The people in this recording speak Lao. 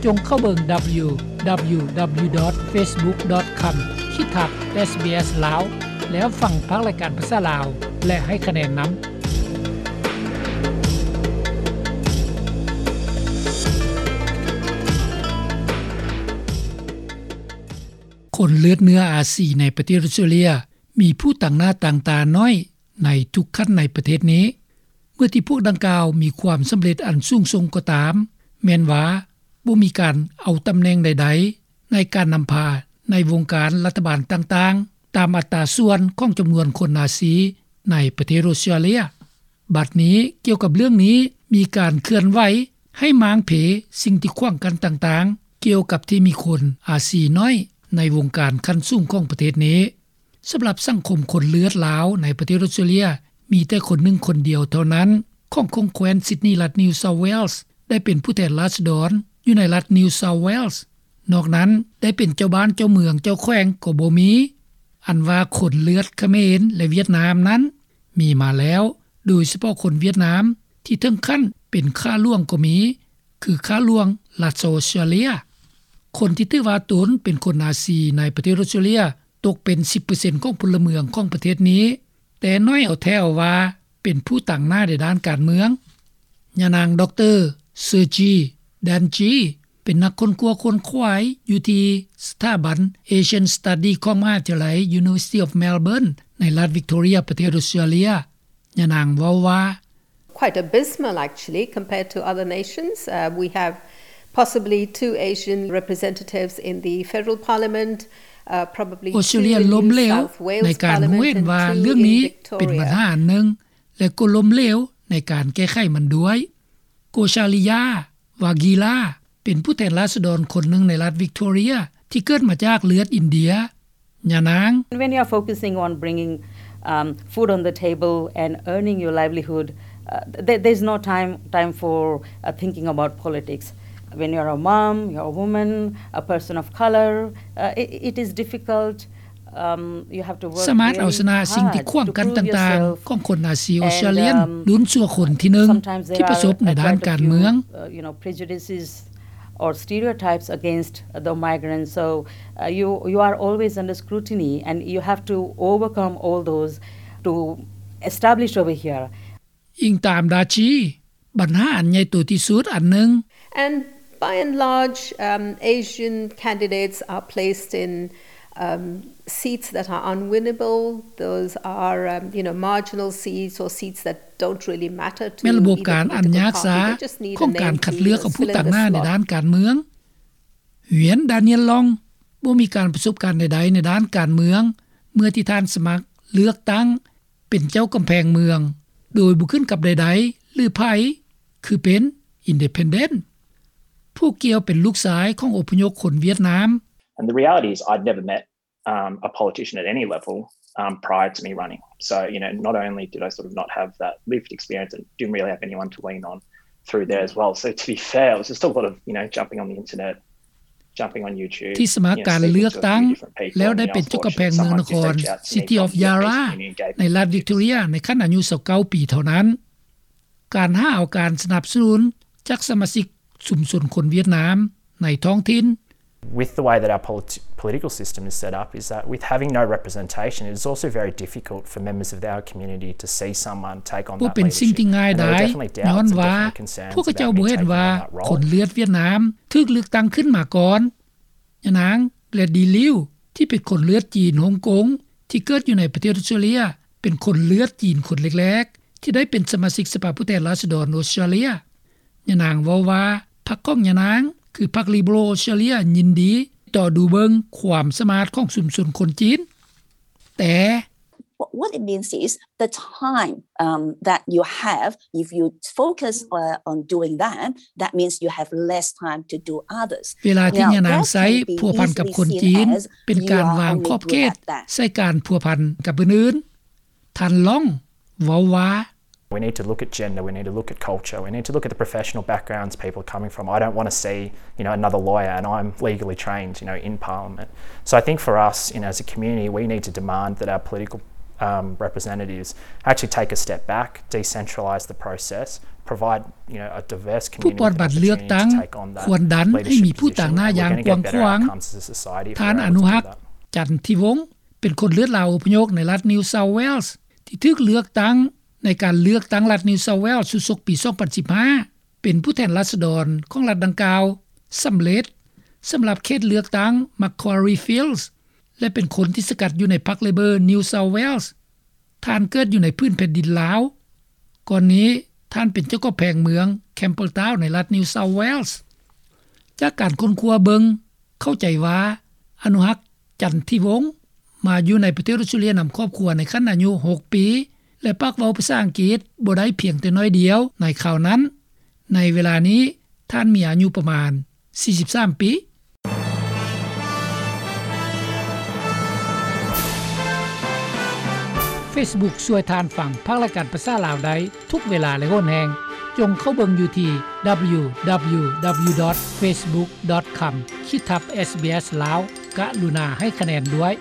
ສົ່ງເຂົ້າເບິ່ງ www.facebook.com/sbs ລາວ ແລ້ວຟັງພາກລາຍການພາສາລາວ ແລະ ໃຫ້ຄະແນນນຳ. ຄົນເລືອດເນື້ອອາຊີໃນປະເທດອົດສະຕຣາເລຍ ມີຜູ້ຕາງໜ້າຕາງຕາໜ້ອຍໃນທຸກຂັ້ນໃນປະເທດນີ້. ເມື່ອທີ່ພວກດັ່ງກ່າວມີຄວາມສຳເລັດອັນສູງສົ່ງກໍຕາມ, ແມ່ນວ່າບໍ່ມີການເອົາຕຳແໜ່ງໃດໆໃນການນຳພາໃນວົງການລັດຖະບານຕ່າງໆ ຕາມອັດຕາສ່ວນຂອງຈຳນວນຄົນອາຊີໃນປະເທດອົດສະຕຣາເລຍ. ບັດນີ້, ກ່ຽວກັບເລື່ອງນີ້, ມີການເຄື່ອນໄຫວໃຫ້ມ້າງເພສິ່ງທີ່ຂວາງກັ້ນຕ່າງໆ ກ່ຽວກັບທີ່ມີຄົນອາຊີນ້ອຍໃນວົງການຂັ້ນສູງຂອງປະເທດນີ້. ສຳລັບສັງຄົມຄົນເລືອດລາວໃນປະເທດອົດສະຕຣາເລຍ ມີແຕ່ຄົນໜຶ່ງຄົນດຽວເທົ່ານັ້ນ ຂອງ ຂອງແຂວນຊິດນີ ລັດ New South Wales ໄດ້ເປັນຜູ້ແທນລາຊະດອນຢູ່ໃນລັດ New South Wales. ນອກນັ້ນໄດ້ເປັນເຈົ້າບ້ານເຈົ້າເມືອງເຈົ້າແຂວງກໍບໍ່ມີ. ອັນວ່າຄົນເລືອດຂະເໝນ ແລະ ຫວຽດນາມນັ້ນມີມາແລ້ວ, ໂດຍສະເພາະຄົນຫວຽດນາມທີ່ເຖິງຂັ້ນເປັນຂ້າຫຼວງກໍມີ, ຄືຂ້າຫຼວງລັດອອສເຕຣເລຍ. ຄົນທີ່ຖືວ່າຕົນເປັນຄົນອາຊີໃນປະເທດອອສເຕຣເລຍຕົກເປັນສິບເປີເຊັນຂອງພົນລະເມືອງຂອງປະເທດນີ້, ແຕ່ໜ້ອຍເອົາແທ້ເອົາວ່າເປັນຜູ້ຕາງໜ້າໃນດ້ານການເມືອງ. ຍານາງ ດຣ. Sergey Danji ເປັນນັກຄົ້ນຄວ້າຂົນຂວາຍຢູ່ທີ່ສະຖາບັນ Asian Study ຂອງມະຫາວິທະຍາໄລ University of Melbourne ໃນລັດ Victoria ປະເທດອອສເຕຣເລຍ. ຍານາງເວົ້າວ່າ, Quite abysmal, actually, compared to other nations. Uh, we have possibly two Asian representatives in the federal parliament, uh, probably ອອສເຕຣເລຍລົ້ມເຫຼວໃນການຮູ້ເຫັນວ່າເລື່ອງນີ້ເປັນບັນຫາອັນໜຶ່ງ ແລະ ກໍລົ້ມເຫຼວໃນການແກ້ໄຂມັນດ້ວຍ. ໂກຊາລິຢາ ວາກີລາ ເປັນຜູ້ແທນລາຊະດອນຄົນໜຶ່ງໃນລັດ Victoria ທີ່ເກີດມາຈາກເລືອດອິນເດຍ. ຍານາງ, When you are focusing on bringing, um, food on the table and earning your livelihood, uh, there, there's no time, time for, uh, thinking about politics. When you're a mom, you're a woman, a person of color, uh, it, it is difficult. Um, you have to work very hard to prove yourself. ສາມາດເອົາຊະນະສິ່ງທີ່ຂວາງກັ້ນຕ່າງໆຂອງຄົນອາຊີອອສເຕຣເລຍ ລຸ້ນຊົ່ວຄົນທີໜຶ່ງທີ່ປະສົບໃນດ້ານການເມືອງ. ອີງຕາມ ດາຈີ ບັນຫາອັນໃຫຍ່ໂຕທີ່ສຸດອັນໜຶ່ງ. And by and large, um, Asian candidates are placed in, um, seats that are unwinnable. Those are, um, you know, marginal seats or seats that don't really matter to either political party. They just need a name to fill in the slot. ແມ່ນລະບົບການອັນຍາກຊ້າຂອງການຄັດເລືອກເອົາຜູ້ຕາງໜ້າໃນດ້ານການເມືອງ. ຫວຽນ ດານຽນລອງ ບໍ່ມີການປະສົບການໃດໆໃນດ້ານການເມືອງ ເມື່ອທີ່ທ່ານສະໝັກເລືອກຕັ້ງເປັນເຈົ້າກຳແພງເມືອງ ໂດຍບໍ່ຂຶ້ນກັບໃດໆ ຫຼື ໃຜ ຄືເປັນ independent. ຜູ້ກ່ຽວເປັນລູກຊາຍຂອງອົບພະຍົບຄົນຫວຽດນາມ. And the reality is I'd never met um, a politician at any level, um, prior to me running. So, you know, not only did I sort of not have that lived experience and didn't really have anyone to lean on through there as well. So to be fair, it was just a lot of, you know, jumping on the internet, jumping on YouTube, ທີ່ສະໝັກການເລືອກຕັ້ງ ແລ້ວໄດ້ເປັນເຈົ້າກຳແພງເມືອງນະຄອນ City of Yarra ໃນລັດ Victoria ໃນຂັ້ນອາຍຸຊາວເກົ້າປີເທົ່ານັ້ນ. ການຫາເອົາການສະໜັບສະໜູນຈາກສະມາຊິກຊຸມຊົນຄົນຫວຽດນາມໃນທ້ອງຖິ່ນ. With the way that our polit-, political system is set up, is that with having no representation, it is also very difficult for members of our community to see someone take on that leadership. ບໍ່ເປັນສິ່ງທີ່ງ່າຍດາຍ ຍ້ອນວ່າພວກເຂົາເຈົ້າບໍ່ເຫັນວ່າຄົນເລືອດຫວຽດນາມຖືກເລືອກຕັ້ງຂຶ້ນມາກ່ອນ. ຍານາງ ແກຣດດີ ລິວ ທີ່ເປັນຄົນເລືອດຈີນຮົງກົງ ທີ່ເກີດຢູ່ໃນປະເທດອອສເຕຣເລຍ ເປັນຄົນເລືອດຈີນຄົນແລກໆ ທີ່ໄດ້ເປັນສະມາຊິກສະພາຜູ້ແທນລາຊະດອນອອສເຕຣເລຍ. ຍານາງເວົ້າວ່າ ພັກຂອງຍານາງ ຄືພັກ Liberal Australia ຍິນດີຕໍ່ດູເບິ່ງຄວາມສາມາດຂອງຊຸມຊົນຄົນຈີນ. ແຕ່ What, what it means is the time, um, that you have, if you focus, uh, on doing that, that means you have less time to do others. ເວລາທີ່ຍານາງໃຊ້ພົວພັນກັບຄົນຈີນ ເປັນການວາງຂອບເຂດໃສ່ການພົວພັນກັບຜູ້ອື່ນ. ທ່ານລອງເວົ້າວ່າ We need to look at gender, we need to look at culture, we need to look at the professional backgrounds people are coming from. I don't wanna see, you know, another lawyer and I'm legally trained, you know, in Parliament. So I think for us, you know, as a community, we need to demand that our political, um, representatives actually take a step back, decentralise the process, ຜູ້ປອດບັດເລືອກຕັ້ງຄວນດັນໃຫ້ມີຜູ້ຕາງໜ້າຢ່າງກວ້າງຂວາງ. ທ່ານ ອະນຸຮັກ ຈັນທິວົງ ເປັນຄົນເລືອດລາວອົບພະຍົບໃນລັດ New South Wales ທີ່ຖືກເລືອກຕັ້ງໃນການເລືອກຕັ້ງລັດ New South Wales ຊຸດສົກປີ ສອງພັນສິບຫ້າ ເປັນຜູ້ແທນລາຊະດອນຂອງລັດດັ່ງກ່າວສຳເລັດ ສຳລັບເຂດເລືອກຕັ້ງ Macquarie Fields ແລະ ເປັນຄົນທີ່ສະກັດຢູ່ໃນພັກ Labor New South Wales. ທ່ານເກີດຢູ່ໃນພື້ນແຜ່ນດິນລາວ. ກ່ອນນີ້ທ່ານເປັນເຈົ້າຂອງແຂວງເມືອງ Campbelltown ໃນລັດ New South Wales. ຈາກການຄົ້ນຄວ້າເບິ່ງ ເຂົ້າໃຈວ່າ ອະນຸຮັກ ຈັນທິວົງ ມາຢູ່ໃນປະເທດອອສເຕຣເລັຍນຳຄອບຄົວໃນຂັ້ນອາຍຸຫົກປີ ແລະ ປາກເວົ້າພາສາອັງກິດບໍ່ໄດ້ພຽງແຕ່ໜ້ອຍດຽວໃນຄາວນັ້ນ. ໃນເວລານີ້ທ່ານມີອາຍຸປະມານສີ່ສິບສາມປີ. Facebook ຊ່ວຍທ່ານຟັງພາກລາຍການພາສາລາວໄດ້ທຸກເວລາ ແລະ ຫົນແຫ່ງ. ຈົ່ງເຂົ້າເບິ່ງຢູ່ທີ່ www.facebook.com/sbslao. ກະລຸນາໃຫ້ຄະແນນດ້ວຍ.